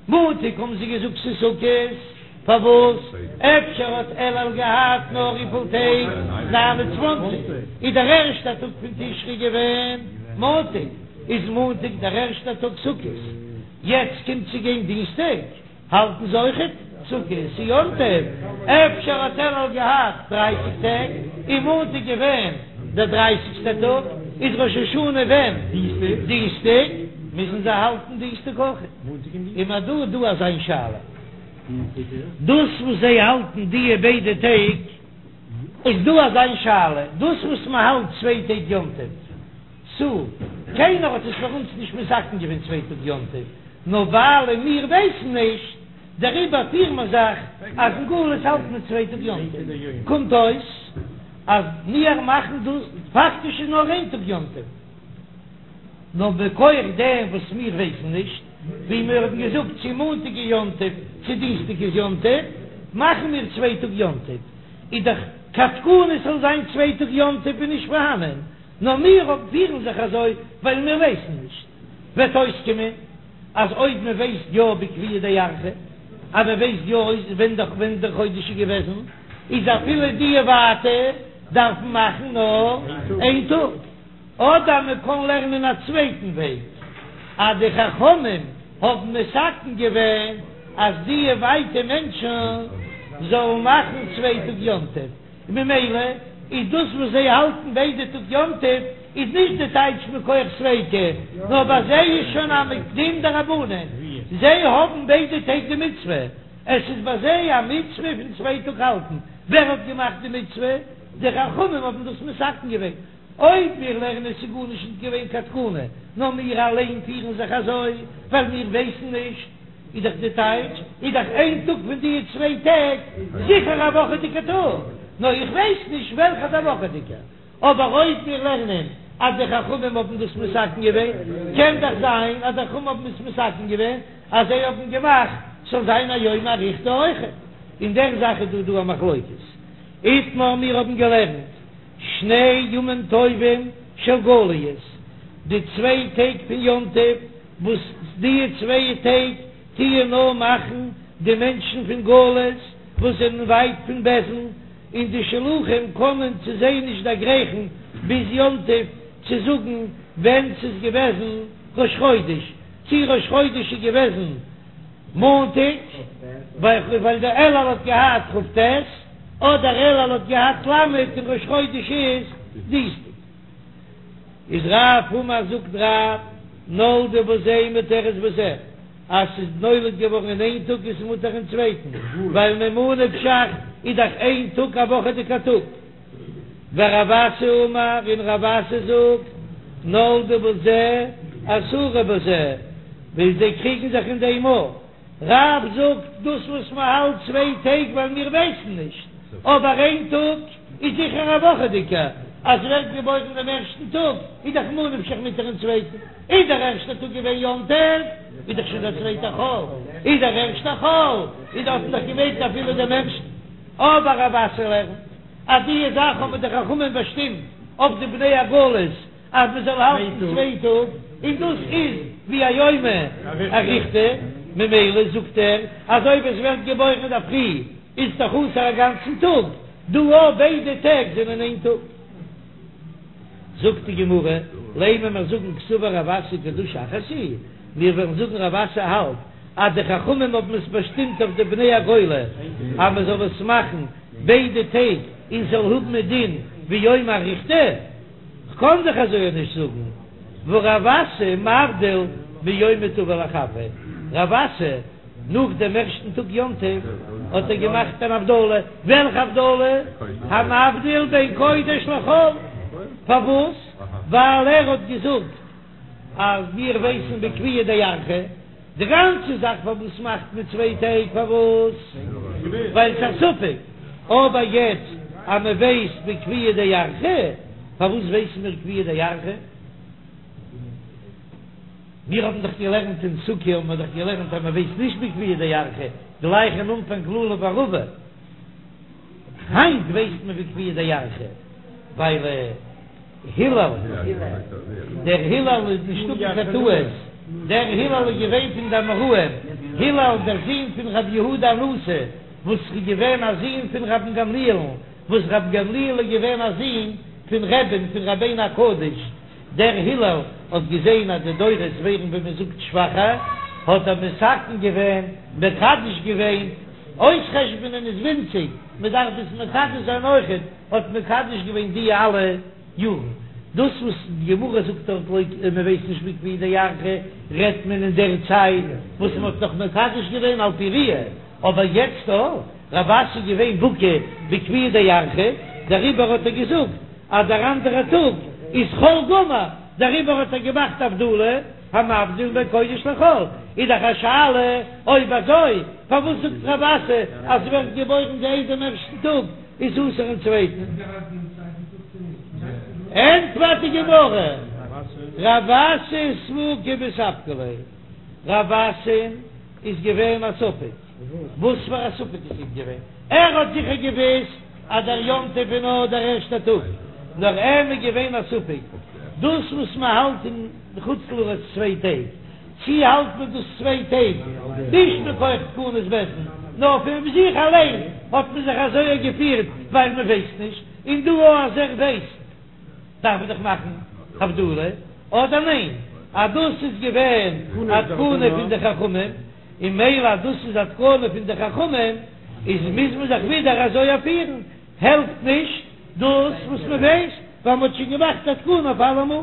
מאנטאג האבן זיי געזאגט ס'איז סוכות, פארוואס? אפשר האט אלול געהאט נאר וויפיל טעג? 29. איז דער ערשטער טאג פון תשרי געווען מאנטאג, איז מאנטאג דער ערשטער טאג סוכות, יעצט קומט צו גיין דינסטאג, האלטן זיי אויכעט סוכות, ס'איז יום טוב, אפשר האט אלול געהאט דרייסיג טעג, און מאנטאג געווען דער דרייסיגסטער טאג, איז ראש השנה ווען? דינסטאג, מוזן זיי האלטן דינסטאג אויכעט. און מ'האט דא דא אזא שאלה. דאס וואס זיי האלטן דיע ביידע טעג, איז דא אזא שאלה, דאס וואס מען האלט צוויי טעג יום טוב, צו קיינער האט עס פאר אונז נישט מתקן געווען צוויי טאג יום טוב, נאר ווייל מיר ווייסן נישט, דעריבער פירן מיר זיך אז אין גלות האלט מען צוויי טאג יום טוב, קומט אויס אז מיר מאכן דאס פאקטיש איז נאר איין טאג יום טוב. נאר מכח דעם וואס מיר ווייסן נישט, ווי מיר האבן געזאגט צו מאנטאג איז יום טוב צו דינסטאג איז יום טוב, מאכן מיר צוויי טאג יום טוב, איז דאך קיין תקנה ס'זאל זיין צוויי טאג יום טוב איז נישט פארהאנען, נאר מיר פירן זיך אזוי ווייל מיר ווייסן נישט, וועט אויסקומען אז אויב מען ווייסט יא בקביעא דירחא, אז מען ווייסט יא ווען דער ווען דער חודש איז געוועזן, איז אפילו די ווייטע דארפן מאכן נאר איין טאג. אדער מען קען לערנען א צווייטן וועג, אז די חכמים האבן מתקן געווען אז די ווייטע מענטשן זאלן מאכן צוויי טאג יום טוב, און ממילא איז דאס וואס זיי האלטן ביידע טאג יום טוב איז נישט די טייטש מכח ספיקא, נאר ביי זיי איז שוין א דין דרבנן, זיי האבן ביידע טעג די מצוה, עס איז ביי זיי א מצוה פון צוויי טאג האלטן, ווער האט געמאכט די מצוה? די חכמים האבן דאס מתקן געווען. אויב מיר לערנען עס איז גארנישט נישט געווען קיין תקנה, נאר מיר אליין פירן זיך אזוי ווייל מיר ווייסן נישט, איז דאך די טייטש איז דאך איין טאג פון די צוויי טעג זיכער א וואכעדיגע טאג, נאר איך ווייס נישט וועלכע איז א וואכעדיגע. אבער אויב מיר לערנען אז די חכמים האבן דאס מתקן געווען, קען דאך זיין אז די חכמים האבן עס מתקן געווען אז זיי האבן געמאכט ס'זאל זיין א יומא אריכתא אויכעט. אין דער זאך איז דא דא א מחלוקת. איתמר מיר האבן געלערנט. שני ימים טובים של גליות, די צוויי טעג פון יום טוב, וואס די צוויי טעג טוען נאר מאכן די מענטשן פון גלות וואס זענען ווייט פון בית דין, און די שלוחים קענען צו זיי נישט דערגרייכן ביז יום טוב צו זאגן ווען ס'איז געוועזן ראש חודש, צי ראש חודש איז געוועזן מאנטאג, ווייל דער אלול האט געהאט כ"ט. אדער אלול האט געהאט ל' און ראש חודש איז דינסטאג. איז רב אמר זאגט רב נולדה בזה מותרת בזה אז ס'איז נולד געווארן אין איין טאג איז מותר אין צווייטן ווייל ממה נפשך איז דאך איין טאג א וואכעדיגע טאג. ורב אסי אמר און רב אסי זאגט נולדה בזה אסורה בזה ווייל זיי קריגן זיך אין דעם אויך. רב זאגט דאס וואס מען האלט צוויי טעג ווייל מיר ווייסן נישט, אבער איין טאג. איז זיכער א וואכעדיגע, אז ווערט געבוירן דעם ערשטן טאג איז דאך ממה נפשך מותר אין צווייטן, איז דער ערשטער טאג געווען יום טוב איז דאך שוין דער צווייטער חול, איז דער ערשטער חול איז האט מען דאך געמעגט אפילו דעם ערשטן, אבער רב אסי לערנט אז די זאך האבן די חכמים באשטימט אויף די בני הגולות אז מען זאל האלטן צוויי טאג, און דאס איז ווי א יומא אריכתא, ממילא זאגט ער אז אויב עס ווערט געבוירן אינדערפרי איז דאך אסור א גאנצן טאג, דא אויך ביידע טעג זענען איין טאג. זאגט די גמרא, לימא מיר זאגן קסבר רב אסי קדושה אחת היא, מיר וועלן זאגן רב אסי האלט אז די חכמים האבן עס באשטימט אויף די בני הגולה אז מען זאל עס מאכן ביידע טעג און ס'זאל האבן א דין ווי יומא אריכתא, כ'קען דאך אזוי נישט זאגן, והא רב אסי מבדיל מיומא טבא לחבריה, רב אסי נאך דעם ערשטן טאג יום טוב האט ער געמאכט אן הבדלה, וועלכע הבדלה? המבדיל בין קודש לחול, פארוואס? ווייל ער האט געזאגט אז מיר ווייסן בקביעא דירחא, די גאנצע זאך פארוואס מאכט מען צוויי טעג פארוואס? ווייל ס'איז א ספק, אבער יעצט אז מען ווייסט בקביעא דירחא, פארוואס ווייסן מיר קביעא דירחא? מיר האבן דאך געלערנט אין סוכה האבן מיר דאך געלערנט אז מען ווייסט נישט בקביעא דירחא, גלייך אין אנפאנג לולב וערבה, היינט ווייסט מען בקביעא דירחא ווייל. הלל, דער הלל איז נישטא קיין טעות, דער הלל איז געווען פון די אמוראים, הלל דער זון פון רבי יהודה הנשיא, וואס איז געווען א זון פון רבן גמליאל'ן, וואס רבן גמליאל איז געווען א זון פון רבי'ן פון רבינו הקדוש, דער הלל האט געזען אז די דורות ווערן ווי מען זאגט שוואכער, האט ער מתקן געווען, מקדש געווען, אויסחשבונען איז ווינציג, מען דארף עס מקדש זיין אויכעט. האט מקדש געווען די אלע יארן. דאס וואס די גמרא זאגט דארט לויט מען ווייסט נישט בקביעא דירחא רעדט מען אין דער צייט וואס מען האט נאך מקדש געווען על פי ראיה, אבער יעצט דא רב אסי איז געווען בקי בקביעא דירחא דעריבער האט ער געזאגט אז דער אנדערע טאג איז חול גמור, דעריבער האט ער געמאכט הבדלה המבדיל בין קודש לחול, איז דאך א שאלה אויב אזוי פארוואס זאגט רב אסי אז ס'ווערט געבוירן די איי דעם ערשטן טאג איז אסור אין צווייטן. ענטפערט די גמרא, רב אסי ספוקי מספקא ליה, רב אסי'ן איז געווען א ספק, וואס פאר א ספק איז אים געווען? ער האט זיכער געוואוסט אז דער יום טוב איז נאר דער ערשטער טאג, נאר אים איז געווען א ספק, דאס וואס מען האלט אין חוץ לארץ צוויי טעג, צי האלט מען דאס צוויי טעג נישט מכח תקנת בית דין, נאר פון זיך אליין האט מען זיך אזוי געפירט ווייל מען ווייסט נישט, און דא אז ער ווייסט דארף מען דאך מאכן הבדלה, אדער ניין אז דאס איז געווען א תקנה פון די חכמים, און מילא אז דאס איז א תקנה פון די חכמים איז מוז מען זיך ווידער אזוי פירן, העלפט נישט דאס וואס מען ווייסט ווייל מען האט שוין געמאכט א תקנה אויף אלעמאל.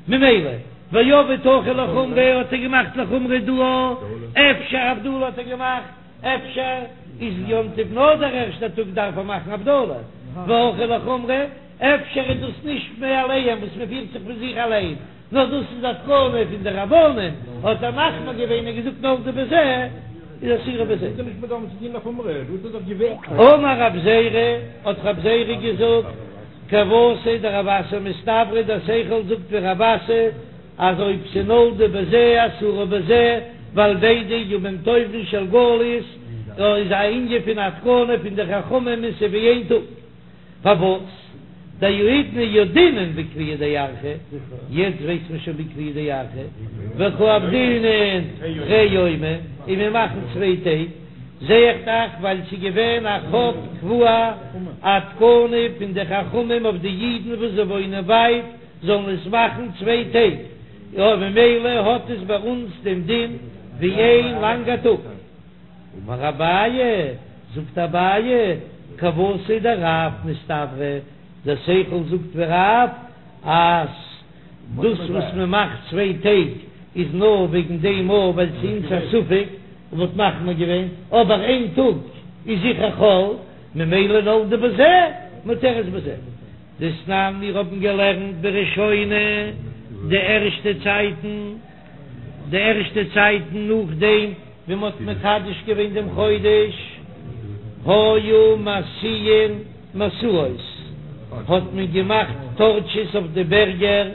ממילא, ועביד הכא לחומרא האט ער געמאכט לחומרא דא, אפשר הבדלה האט ער געמאכט, אפשר איז יום טוב נאר דער ערשטער טאג דארף ער מאכן הבדלה, והכא לחומרא, אפשר איז דאס נישט מאליהם וואס מען פירט זיך פון זיך אליין, נאר דאס איז א תקנה פון די רבנן, האט ער מחמיר געווען און געזאגט נולדה בזה איז אסורה בזה. אמר רב זירא, האט רב זירא געזאגט, כוותיה דרב אסי מסתברא דער שכל זאגט ווי רב אסי אז אויב ס'נולדה בזה אסורה בזה ווייל ביידע ימים טובים של גלות איז א ענין פון א תקנה פון די חכמים און ס'איז ווי איין טאג פארוואס דהאידנא ידעינן בקביעא דירחא יעצט ווייסט מען שוין בקביעא דירחא וקא עבדינן תרי יומי און מיר מאכן צוויי טעג. זע איך דאך ווייל ס'איז געווען א חוק קבוע א תקנה פון די חכמים אויף די אידן וואס זיי וואוינען ווייט זאלן עס מאכן צוויי טעג, און ממילא האט עס ביי אונז דעם דין ווי איין לאנגע טאג. אמר אביי, זאגט אביי, כוותיה דרב מסתברא, דער שכל זאגט ווי רב אז. דאס וואס מען מאכט צוויי טעג איז נאר וועגן דעם אויך ווייל ס'איז אונז א ספק און מ'האט מחמיר געווען, אבער איין טאג איז זיכער חול, ממילא נולדה בזה מותרת בזה. דתנן מיר האבן געלערנט בראשונה די ערשטע צייטן, די ערשטע צייטן נאכדעם ווי מ'האט מקדש געווען דעם חודש, היו מסיעין מסעות. האט מען געמאכט טארטשעס אויף די בערגער,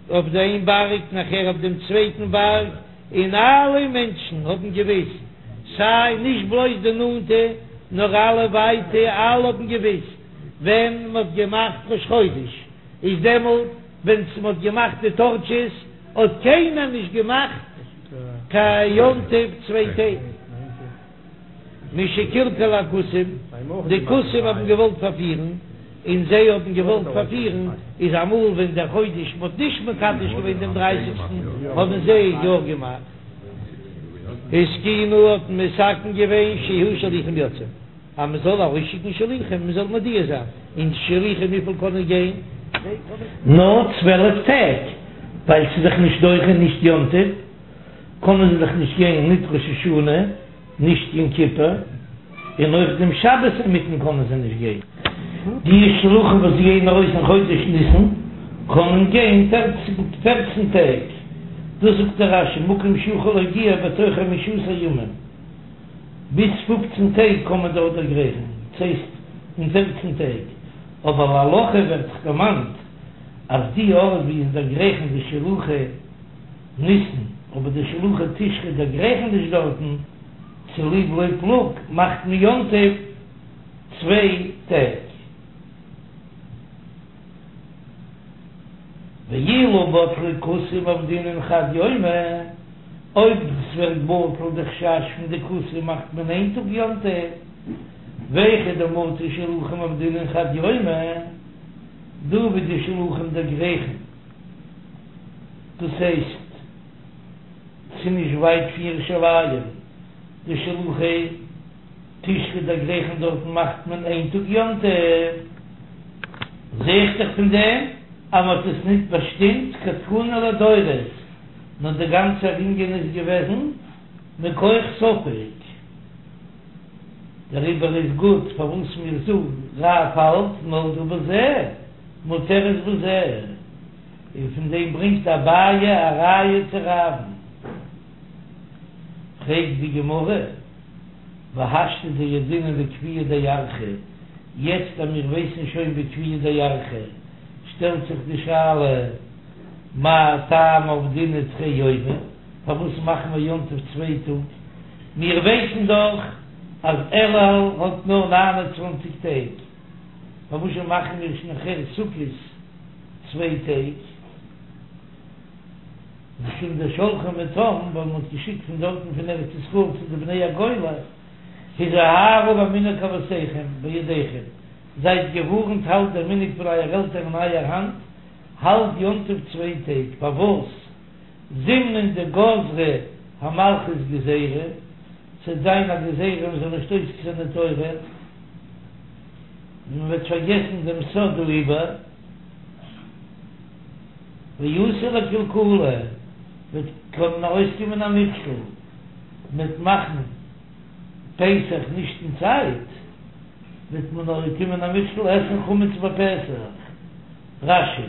אויף די איין בארג נאכער אויף דעם צווייטן בארג, און אלע מענטשן האבן געוויסט, סיי נישט בלויז די נאנטע נאר אלע ווייטע, אלע האבן געוויסט ווען מ'האט געמאכט ראש חודש, איז דעמאלט ווען מ'האט געמאכט די טארטשעס האט קיינער נישט געמאכט קיין יום טוב צוויי טעג. משקלקלו הכותים, די כותים האבן געוואלט פארפירן, און זיי האבן געוואלט פארפירן, איז אמאל ווען דער חודש מ'האט נישט מקדש געווען דעם דרייסיגסטן האבן זיי יא געמאכט. התקינו האט מען מתקן געווען שיהו שלוחים יוצאים, אז מען זאל ארויסשיקן שליחים, מען זאל מודיע זיין, און שליחים וויפיל קענען גיין? נאר 12 טעג, ווייל ס'איז דאך נישט דוחה נישט יום טוב. קענען זיי דאך נישט גיין ניט ראש השנה, נישט יום כיפור, און אויך דעם שבת אינמיטן קענען זיי נישט גיין. די שלוחים וואס גייען ארויס אין חודש ניסן קענען גיין פערצן טעג, דאס זאגט דער רש"י מקום שיכול להגיע בתוך חמשה עשר ימים, ביז פופצן טעג קען מען דארט דערגרייכן, דאס הייסט אין פערצן טעג, אבער להלכה ווערט דאך דערמאנט אז די ארט ווי עס דערגרייכן די שלוחי ניסן, אבער די שלוחי תשרי דערגרייכן נישט דארטן, צוליב לא פלוג מאכט מען יום טוב צוויי טעג. ואילו בטלו כותים עבדינן חד יומא, אויב ס'ווערט בטל די חשש פון די כותים מאכט מען איין טאג יום טוב, והיכא דמטו שלוחים עבדינן חד יומא, דא ווי די שלוחים דערגרייכן. דאס הייסט, ס'איז נישט ווייט פון ירושלים, די שלוחי תשרי דערגרייכן דארטן מאכט מען איין טאג יום טוב, זע איך דאך פון דעם אז מ'האט עס ניט באשטימט כתקנה לדורות, נאר דער גאנצער ענין איז געוועזן מכח ספק. דעריבער איז גוט פארוואס מיר זאגן רב האלט נולדה בזה מותרת בזה. און פון דעם ברענגט אביי א ראיה צו רב'ן. פרעגט די גמרא, והשתא דידעינן בקביעא דירחא, יעצט אז מיר ווייסן שוין בקביעא דירחא, שטעלט זיך די שאלה, מאי טעמא עבדינן תרי יומי, פארוואס מאכן מיר יום טוב צוויי טאג, מיר ווייסן דאך אז אלול האט נאר 29 טעג, פארוואס זשע מאכן מיר נאכהער סוכות צוויי טעג, משום דשלחו מתם, ווייל מ'האט געשיקט פון דארטן פון ארץ ישראל צו די בני הגולה, הזהרו במנהג אבותיכם בידיכם, זייט געווארנט האלט דער מנהג פון אייער עלטערן אין אייער האנט, האלט יום טוב צוויי טעג, פארוואס? זימנין דגזרה המלכות גזירה, ס'וועט זיין א גזירה מ'זאל נישט עוסק זיין אין תורה, און מ'וועט פארגעסן דעם סוד העיבור, ואתי לקלקולא, וועט קענען ארויסקומען א מכשול, מ'וועט מאכן פסח נישט אין צייט, וועט מען ארויסקומען א מכשול עסן חמץ בפסח. רש"י.